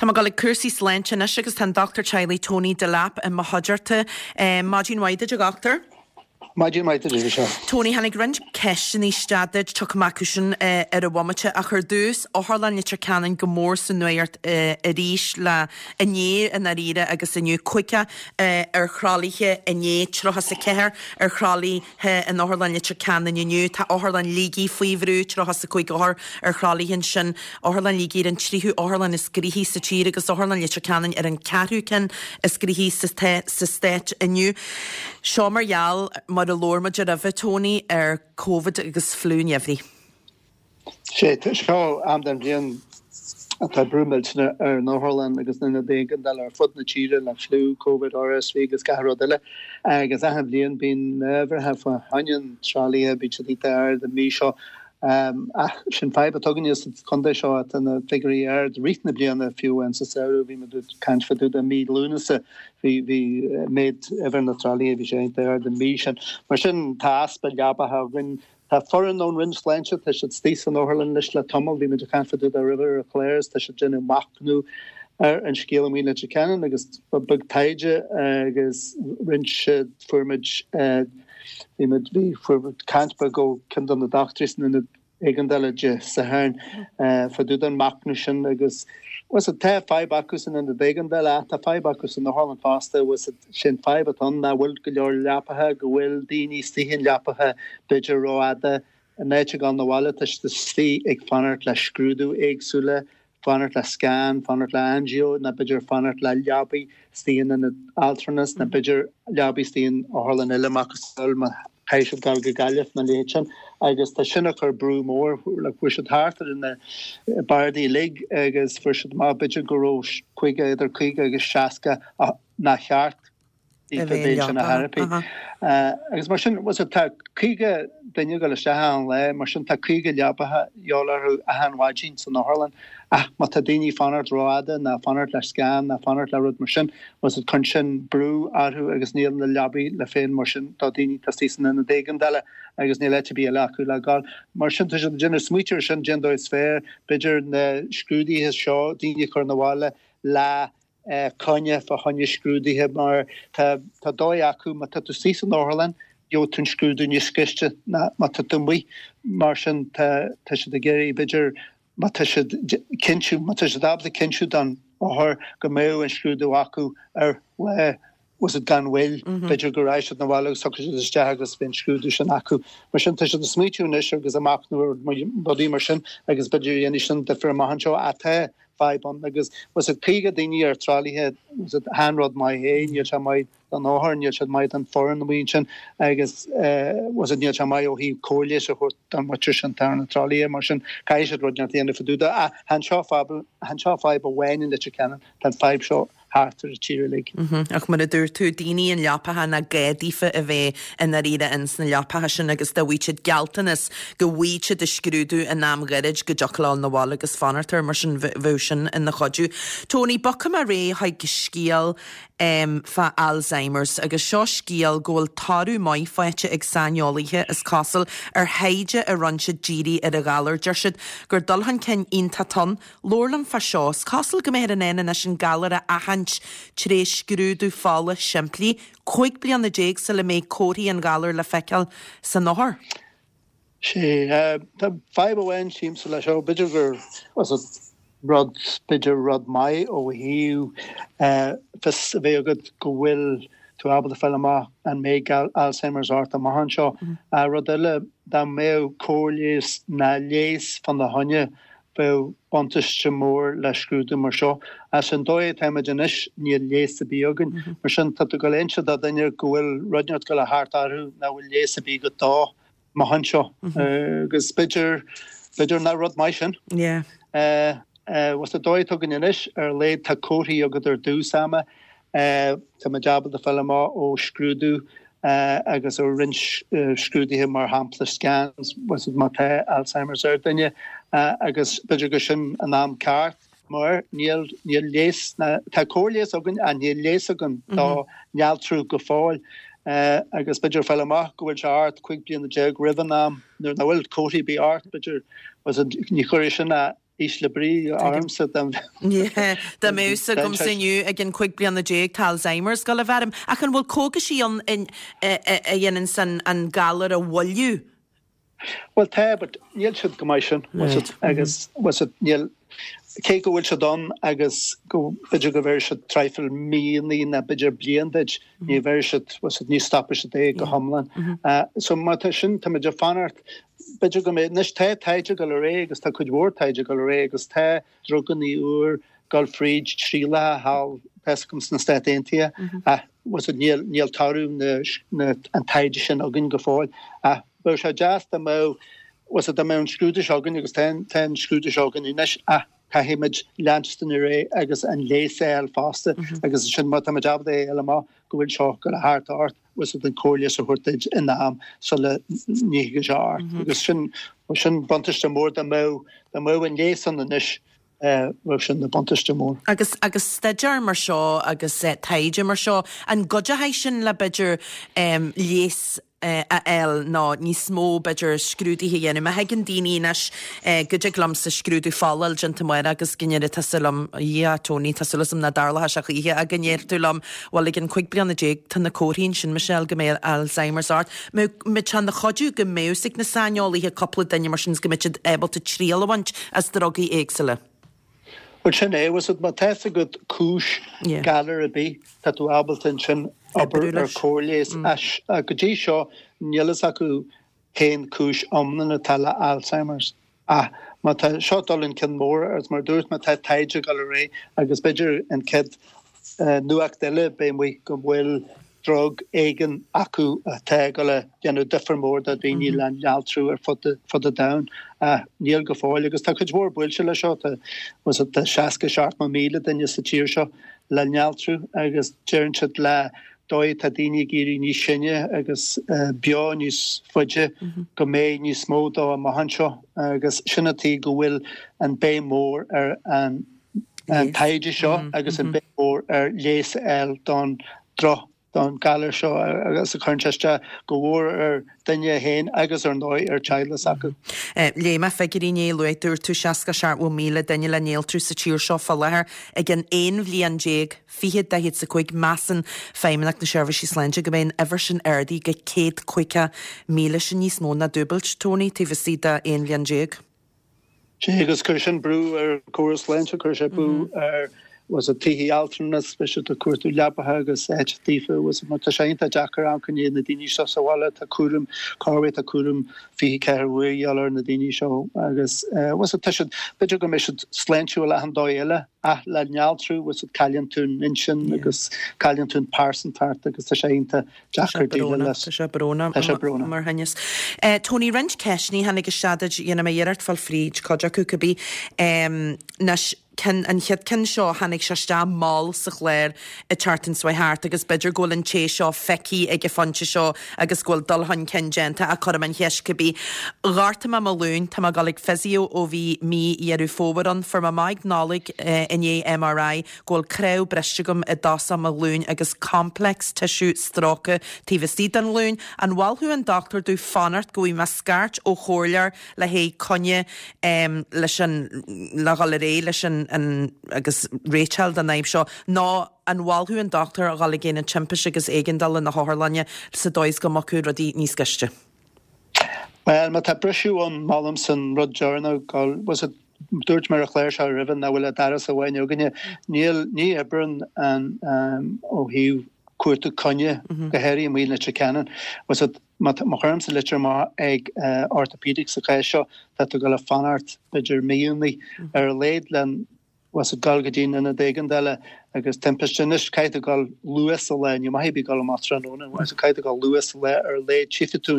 Tá mé ag dul ag cúrsaí sláinte anois agus tá an Dochtúir Teaghlaigh Tony Delap i mo chuideachta. Maidin mhaith duit a dhochtúir. Maidin mhaith duit Michelle. Tony, tháinig roinnt ceisteanna isteach duit, tiocfaidh mé acu sin ar an bhomaite, ach ar dtús, Otharlann Leitir Ceanainn go mór sa nuacht arís le inné i ndáiríre agus inniu, 50 ar thralaithe inné, 34 ar thralaithe in Otharlann Leitir Ceanainn inniu. Tá Otharlann Shligigh faoi bhrú, 35 othar ar thralaithe ansin. Otharlann Shligigh ar an tríú otharlann is gnoithí sa tír agus Otharlann Leitir Ceanainn ar an ceathrú ceann is gnoithí sa stát inniu. Seo mar gheall, mar a labhair muid roimhe, Tony, ar Covid agus fliú an gheimhridh. Sé seo am den bhliain atá brú millteanach ar an otharlann agus na hionaid éigeandála ar fud na tíre le fliú, Covid, RSV agus gach rud eile. Agus achan bhliain bíonn na huimhreacha fá choinne an tralaithe, bíonn siad iontach ard an mhí seo. Ach sin fadhb atá againne sa chontae seo, tá na figiúirí ard i rith na bliana, fiú amháin sa samhradh, bhí muid ag caint fá dtaobh de mí Lúnasa, bhí bhí méid uimhir na tralaithe, bhí sé iontach ard an mhí sin. Mar sin tá easpa leabacha againn. Tá foireann ón Roinn Sláinte, tá siad istigh san otharlann anois le tamall, bhí muid ag caint fá dtaobh de roimhe ar an chlár is tá siad ag déanamh machnamh ar an scéal amuigh i Leitir Ceanainn agus ba beag taighde agus roinnt fuair muid bhí muid bhí fuair muid caint beag ó ceann de na dochtúirí san ionad éigeandála Dé Sathairn fá dtaobh den machnamh sin agus bhuel tá fadhb acu san ionad éigeandála ach tá fadhb acu san otharlann fosta bhuel Sé'n fadhb atá ann nach bhfuil go leor leapacha, go bhfuil daoine istigh in leapacha b'fhéidir rófhada, in áit a ghabháil 'na bhaile tá siad istigh ag fanacht le scrúdú éagsúla, fanacht le scan, fanacht le angio nó b'fhéidir fanacht le leabaí istigh in ionad altranas nó b'fhéidir leabaí istigh in otharlann eile macasamhail má chaithfidh siad dul go Gaillimh nó a leithéid sin agus tá sin ag cur brú mór, like fuair siad thart ar na bardaí uilig agus fuair siad amach b'fhéidir go raibh 50, idir 50 agus 60 nár cheart a bheith sin a therapy. Agus mar sin, tá 50 duine ag dul isteach achan lá, mar sin tá 50 leabacha de dhíobháil orthu achan mhaidin san otharlann. Ach má tá daoine ag fanacht rófhada ná fanacht le scan ná fanacht le rud mar sin, bhuel cuireann sin brú orthu agus níl na leabaí le fáil mar sin do daoine atá istigh san ionad éigeandála agus níl áit ar bith eile acu le gabháil. Mar sin tá siad ag déanamh smaoitiú ar sin, cén dóigh is fearr, b'fhéidir na scrúduithe seo, daoine a chur 'na bhaile le coinne fá choinne scrúduithe mar tá tá dóigh acu má tá tú istigh san otharlann gheobhaidh tú an scrúdú níos gaiste ná má tá tú amuigh mar sin tá tá siad ag iarraidh b'fhéidir má tá siad cinntiú má tá siad ábalta cinntiú don othar go mbeadh an scrúdú acu ar lá was it gan mhoill b'fhéidir go raghaidh siad 'na bhaile agus tiocfaidh siad isteach agus beidh an scrúdú sin acu. Mar sin tá siad ag smaoitiú anois agus ag machnamh ar rudaí mar sin agus b'fhéidir dhéanfaidh sin difear amach anseo ach tá fadhb ann agus was it 50 daoine ar tralaithe was it chan rud maith é níl sé maith don othar níl sé maith don foireann amuigh ansin agus was it níl sé maith ó thaobh cóir leighis a thabhairt don mhuintir sin atá ar na tralaithe mar sin caithfidh siad rud inteacht a dhéanamh fá dtaobh de ach chan seo fadhb chan seo fadhb amháin in Leitir Ceanainn tá an fadhb seo thart ar an tír uilig. Ach mar a dúirt tú, daoine in leapacha nach gá daofa a bheith i ndáiríre ins na leapacha sin agus dá bhfaigheadh siad gealltanas go bhfaighidh siad a scrúdú in am ghairid go dtiocfadh leo 'na bhaile agus fanacht air, mar sin bheadh sin ina chuidiú. Tony, bogfaidh mé ar aghaidh chuig scéal fá Alzheimer's agus seo scéal go bhfuil toradh maith faighte ag saineolaithe, is cosúil, ar thaighde a rinne siad dírithe ar an ghalar. Deir siad gur dul chun cinn iontach atá ann. Labhair liom fá seo. Is cosúil go mbeifear in ann anois an galar a aithint tré scrúdú fola simplí, 15 bliana sula mbeidh comharthaí an ghalair le feiceáil san othar. Sea, tá fadhb amháin tchímse leis seo, b'fhéidir gur rud, b'fhéidir rud maith ó thaobh fios a bheith agat go bhfuil tú ábalta fáil amach an mbeidh Alzheimer's ort amach anseo. Rud eile, dá mbeadh cóir leighis ná leigheas fána choinne, Bheadh buntáiste mór le scrúdú mar seo. Ach an dóigh atáimid anois, níl leigheas ar bith againn. Mar sin, tá tú ag dul a inse do dhuine go bhfuil rud inteacht ag dul a theacht orthu nach bhfuil leigheas ar bith agat dó amach anseo. Agus b'fhéidir, b'fhéidir nach rud maith sin. Yeah. Bhuel, sa dóigh atá againn anois, ar a laghad tá comharthaí agat ar dtús ama. Táimid ábalta fáil amach ó scrúdú agus ó roinnt scrúduithe, mar shampla scans, má tá Alzheimer's ar duine agus b'fhéidir gur sin an am ceart mar níl níl leigheas, tá cóir leighis againn ach níl leigheas againn dá néaltrú go fóill agus b'fhéidir fáil amach go bhfuil sé ort 15 bliana roimh an am nuair nach bhfuil comharthaí ar bith ort, b'fhéidir ní chuirfidh sin a. Ísle brí ormsa dá Yeah, dá mbeadh fhios agamsa inniu ag an 15 bliana tá Alzheimer's ag gabháil a bheith orm. Ach an bhfuil cógaisí ann a dhéananns an galar a mhoilliú? Bhuel tá, but níl siad chomh maith sin, right. Agus bhfuil siad, níl, cé go bhfuil siad ann agus go b'fhéidir go bheir siad traidhfil míonna nó b'fhéidir bliain duit, ní bheir siad, bhfuil siad, ní stopfaidh siad é go hiomlán. So má tá sin, tá muid ag fanacht, b'fhéidir go mbeidh, anois tá taighde ag dul ar aghaidh agus tá cuid mhór taighde ag dul ar aghaidh agus tá drugannaí úr ag dul fríd trialacha thall, tá fhios agam sna Stáit Aontaithe ach bhfuil siad, níl, níl toradh na, na, an taighde sin againn go fóill ach bheadh sé deas dá mbeadh, bhfuil siad, dá mbeadh an scrúdú seo againn agus tá an, tá an scrúdú seo againn anois ach caithfimid leanstan ar aghaidh agus an leigheas a fháil fosta agus ansin má táimid ábalta é a fháil amach go bhfuil seo ag gabháil thart ort, bhfuil siad, an cóir leighis a thabhairt duit in am sula ntiocfaidh sé ort agus sin, sin buntáiste mór dá mbeadh, dá mbeadh an leigheas ann anois. Bheadh sin ina buntáiste mór. Agus, agus staidéar mar seo agus taighde mar seo, an gcuideoidh sin le b'fhéidir leigheas a fháil nó níos mó b'fhéidir scrúduithe a dhéanamh? Má thuigeann daoine anois go dtig liomsa scrúdú fola a fháil déanta amárach agus go ndéarfaidh tusa liom, a Dhia, Tony, tá súil agam nach dtarlóidh sé choíche ach go ndéarfaidh tú liom, bhuel ag an 15 bliana tá na comharthaí ansin, Michelle, go mbeidh Alzheimer's ort. Mbeadh sé ina chuidiú go mbeadh fhios ag na saineolaithe cúpla duine mar sin is go mbeadh siad ábalta triail a bhaint as drugaí éagsúla. Bhuel sin é, bhfuil fhios agat, má tá fhios agat cúis galar ar bith, tá tú ábalta ansin obair ar cóir leighis. Ach go dtí seo níl fhios acu cén cúis iomlán atá le Alzheimer's. Ach má tá seo dul chun cinn mór agus mar a dúirt mé tá taighde ag dul ar aghaidh agus b'fhéidir an chéad nuacht eile beidh amuigh go bhfuil drug éigin acu atá ag dul a dhéanamh difear mór do dhaoine le néaltrú ar fud fud an domhain. Ach níl go fóill agus tá cuid mhór buailte le seo. Tá tá 60 70,000 duine sa tír seo le néaltrú agus deireann siad le dóigh atá daoine ag éirí níos sine agus beo níos faide go mbeidh níos mó dó amach anseo agus sin an tuige go bhfuil an béim mór ar an taighde seo agus an béim mór ar leigheas a fháil don droch don galar seo agus a chuireann sé isteach go mhór ar duine féin agus ar ndóigh ar teaghlaigh s'acu. Léigh mé figiúirí inné, luaigh dúirt tú 67,000 duine le néaltrú sa tír seo fá láthair ag an 11 bhliain 20 45 Measann Feidhmeannacht na Seirbhísí Sláinte go mbeidh an uimhir sin ardaithe go 150,000, sin níos mó ná dúbailt, Tony, taobh istigh de 11 bhliain. Sea, agus cuirfidh sin brú ar an gcóras sláinte, cuirfidh sé brú ar bhfuil fhios agat tithe altranais, beidh siad ag cuartú leapacha agus áit daofa, bhfuil fhios agat mar tá sé iontach deacair amharc i ndiaidh na daoine seo sa bhaile, tá cúram, corruair tá cúram 24 uair a dhíobháil ar na daoine seo agus bhfuil fhios agat tá siad, b'fhéidir go mbeidh siad sláintiúil achan dóigh eile ach le néaltrú, bhfuil fhios agat cailleann tú an intinn agus cailleann tú an pearsantacht agus tá sé iontach deacair déileáil leis. Tá sé brónach. Tá sé brónach. Mar thinneas. Tony, roinnt ceisteanna tháinig isteach duit, dhéanfaidh mé iarracht fáil fríd cuid acu cibé. Anois, ceann, an chéad ceann seo, tháinig sé isteach mall sa chlár an tseachtain seo thart agus b'fhéidir go bhfuil an té seo feicthe ag an phointe seo agus go bhfuil dul chun cinn déanta ach cuirfidh mé an cheist cibé. Ghortaigh mé mo ghlúin, tá mé ag dul ag physio ó bhí mí Dheireadh Fómhair ann, fuair mé amach ag Nollaig i ndiaidh MRI go bhfuil cnámh briste agam i dtosach mo ghlúin agus complex tissue stróicthe taobh istigh den ghlúin. An mholfadh an dochtúir domh fanacht go bhfaighidh mé scairt ó chomhairleoir le haghaidh coinne leis an le dhul ar aghaidh leis an an agus réiteáil don fhadhb seo nó an mholfadh an dochtúir a dhul ag aonad timpiste agus éigeandála na hotharlainne sa dóigh is go mbogfadh rudaí níos gaiste? Bhuel, má tá briseadh ann, molaimse an rud deireanach, bhfuil fhios agat, dúirt mé ar an chlár seo roimhe nach bhfuil ach doras amháin againne. Níl, ní oibreann an, ó thaobh cuartú coinne, go háirithe amuigh i Leitir Ceanainn. Bhfuil fhios agat, má, má chuirimse litir amach ag orthopaedic sa chás seo, tá tú ag dul a fanacht b'fhéidir míonna ar a laghad le bhfuil fhios agat dul go dtí an ionad éigeandála agus timpiste. Anois caithfidh tú dul luath sa lá, ní maith ar bith dul amach tráthnóna, bhfuil fhios agat caithfidh tú dul luath sa lá ar a laghad tchífidh tú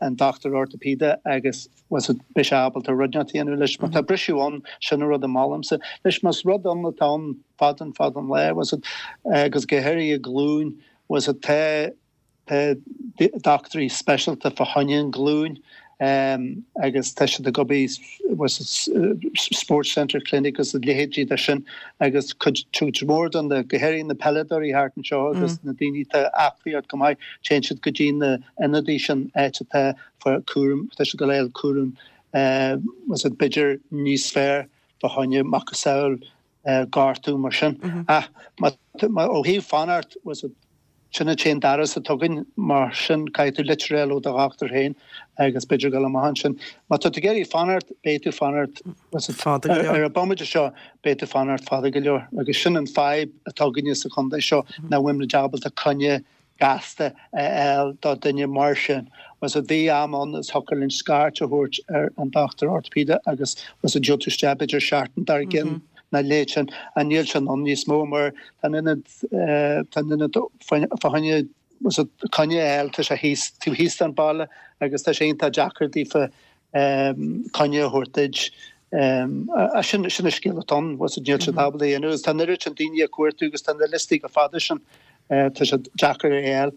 an dochtúir orthopaeide agus bhfuil fhios agat beidh sé ábalta rud inteacht a dhéanamh leis. Má tá briseadh ann, sin an rud a molaimse. Anois más rud ann atá ann fada an fada an lá, bhfuil fhios agat agus go háirithe glúin, bhfuil fhios agat tá Tá dochtúirí speisialta fá choinne an ghlúin agus tá siad ag obair Sports Centre Clinic agus a leithéidí de sin agus cuid mhór de na, go háirithe na peileadóirí thart anseo agus na daoine atá aclaí go maith, téann siad go dtí na ionadaí sin áit atá fá cúram, tá siad ag dul a fháil cúram. Bhfuil a fhios agat b'fhéidir níos fearr fá choinne macasamhail gortú mar sin. Ach ó thaobh fanacht, bhfuil a fhios agat, sin an t-aon doras atá againn, mar sin caithfidh tú litir a fháil ó do dhochtúir féin agus b'fhéidir dul amach ansin. Má tá tú ag iarraidh fanacht, beidh tú fanacht, bhfuil a fhios agat, ar an bomaite seo, beidh tú fanacht fada go leor. Agus sin an fadhb atá againne sa chontae seo, nach bhfuilimid ábalta coinne gasta a fháil do duine mar sin. Bhfuil a fhios agat, bhí am ann is thiocfadh linn scairt a thabhairt ar an dochtúir orthopaedeach agus bhfuil a fhios agat gheobhadh tú isteach b'fhéidir seachtain dár gcionn nó a leithéid sin. Ach níl sin ann níos mó mar tá an ionad tá an ionad fá choinne bhfuil a fhios agat coinne a fháil tá sé thíos taobh thíos den baile agus tá sé iontach deacair daofa coinne a thabhairt duit. Sin an scéal atá ann, bhfuil a fhios agat níl siad ábalta a dhéanamh agus tá an oiread sin daoine ag cuartú agus tá na liostaí chomh fada sin, tá sé deacair a fháil.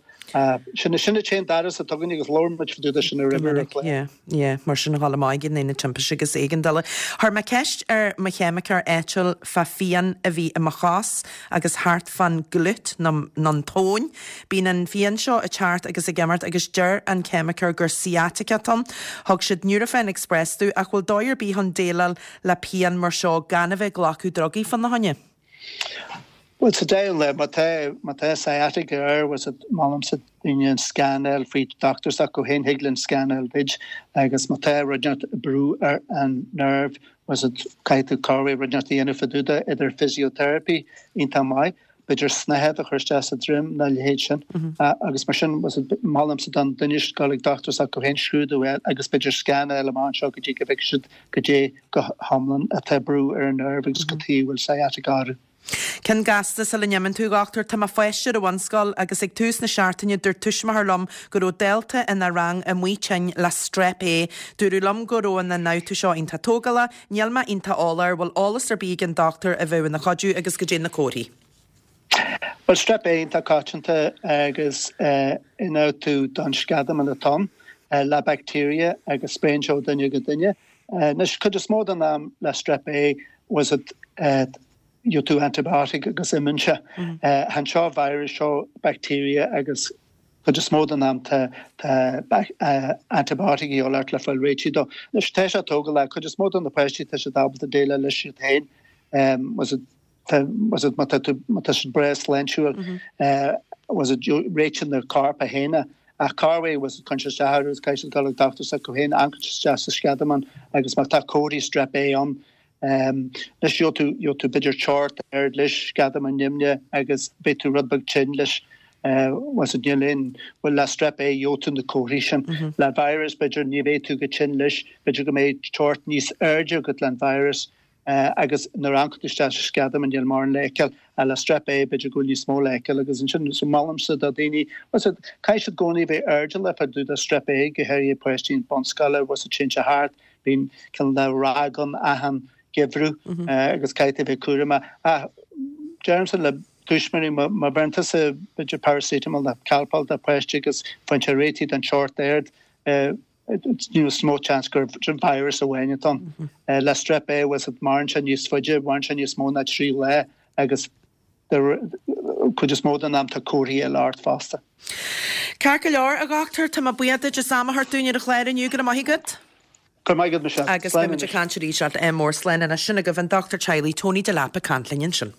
Sin sin an t-aon doras atá againn agus labhair muid fá dtaobh de sin roimhe ar an chlár. Yeah, yeah, mar sin a dhul amach ag an aonad timpiste agus éigeandála. Chuir mé ceist ar mo cheimiceoir áitiúil fá phian a bhí i mo chos agus thart fán glute nó an tóin. Bíonn an phian seo ag teacht agus ag imeacht agus deir an ceimiceoir gur sciatica atá ann. Thug siad Nurofen Express domh ach bhfuil dóigh ar bith chun déileáil le pian mar seo gan a bheith ag glacadh drugaí fána choinne? Bhuel, sa deireadh an lae, má tá, má tá sciatica air, bhfuil a fhios agat, molaimse daoine an scan a fháil faoi dochtúir s'acu féin, thig linn scan a fháil duit agus má tá rud inteacht ag brú ar an nerve, bhfuil a fhios agat, caithfidh tú corruair rud inteacht a dhéanamh fá dtaobh de, idir physiotherapy iontach maith, b'fhéidir snáthaid a chur isteach sa droim nó a leithéid sin. Agus mar sin, bhfuil a fhios agat, molaimse don duine dul ag dochtúir s'acu féin, scrúdú a fháil agus b'fhéidir scan a fháil amach anseo go dtí go bhfeicfidh siad goidé go hiomlán atá ag brú ar an nerve agus cad chuige a bhfuil sciatica orthu. Ceann gasta sula n-imíonn tú, a dhochtúir. Tá mo pháiste ar an bhunscoil agus ag tús na seachtaine dúirt tuismitheoir liom go raibh dalta ina rang amuigh tinn le Strep A. Dúradh liom go raibh an ionfhabhtú seo iontach tógálach. Níl mé iontach eolach air, bhfuil eolas ar bith ag an dochtúir a bheadh ina chuidiú agus goidé na comharthaí. Bhuel, Strep A iontach coitianta agus ionfhabhtú don sceadamán atá ann le bacteria agus spréann sé ó duine go duine. Anois, cuid is mó den am le Strep A bhfuil a fhios agat gheobhaidh tú antibiotic agus imíonn sé. Chan seo virus, seo bacteria agus Cuid is mó den am tá antibiotic a dhíobháil ort le fáil réitithe dó. Anois tá sé tógálach, cuid is mó de na páistí tá siad ábalta déileáil leis iad féin. Bhfuil a fhios agat má tá tú má tá siad breá sláintiúil bhfuil a fhios agat réitíonn an corp é féin é. Ach corruair bhfuil a fhios agat cuireann sé isteach orthu agus caithfidh siad dul ag dochtúir s'acu féin, amharcann siad isteach sa sceadamán agus má tá comharthaí strep A ann Anois gheobhaidh tú, gheobhaidh tú b'fhéidir teocht ard leis, sceadamán nimhneach agus beidh tú rud beag tinn leis. Bhfuil a fhios agat, níl aon, bhuel le strep A gheobhaidh tú na comharthaí sin. Le virus b'fhéidir ní bheidh tú chomh tinn leis, b'fhéidir go mbeidh teocht níos airde agat le an virus agus nuair a amharcann tú isteach sa sceadamán níl mórán le feiceáil. Ach le strep A b'fhéidir go bhfuil níos mó le feiceáil agus ansin so molaimse do dhaoine, bhfuil a fhios agat, caithfidh siad i gcónaí a bheith airdeallach fá dtaobh de strep A, go háirithe páistí bunscoile, bhfuil a fhios agat téann sé thart, Bíonn cineál de ráig ann achan gheimhreadh agus caithfidh tú a bheith cúramach. Ach deirimse le tuismitheoirí, má bheireann tusa b'fhéidir paracetamol nó Calpol do pháiste agus faigheann sé réitithe don teocht ard, níos mó seans gur virus amháin atá ann. Le strep A, bhfuil a fhios agat, maireann sé níos faide, maireann sé níos mó ná 3 lá agus cuid is mó den am tá comharthaí eile ort fosta. Ceart go leor, a dhochtúir, tá mé buíoch duit as am a thabhairt dúinn ar an chlár inniu. Go raibh maith agat. Go raibh maith agat, Michelle. Agus beidh muid ag caint arís leat. Ádh mór, slán anois. Sin agaibh an dochtúir teaghlaigh Tony Delap ag caint linn ansin.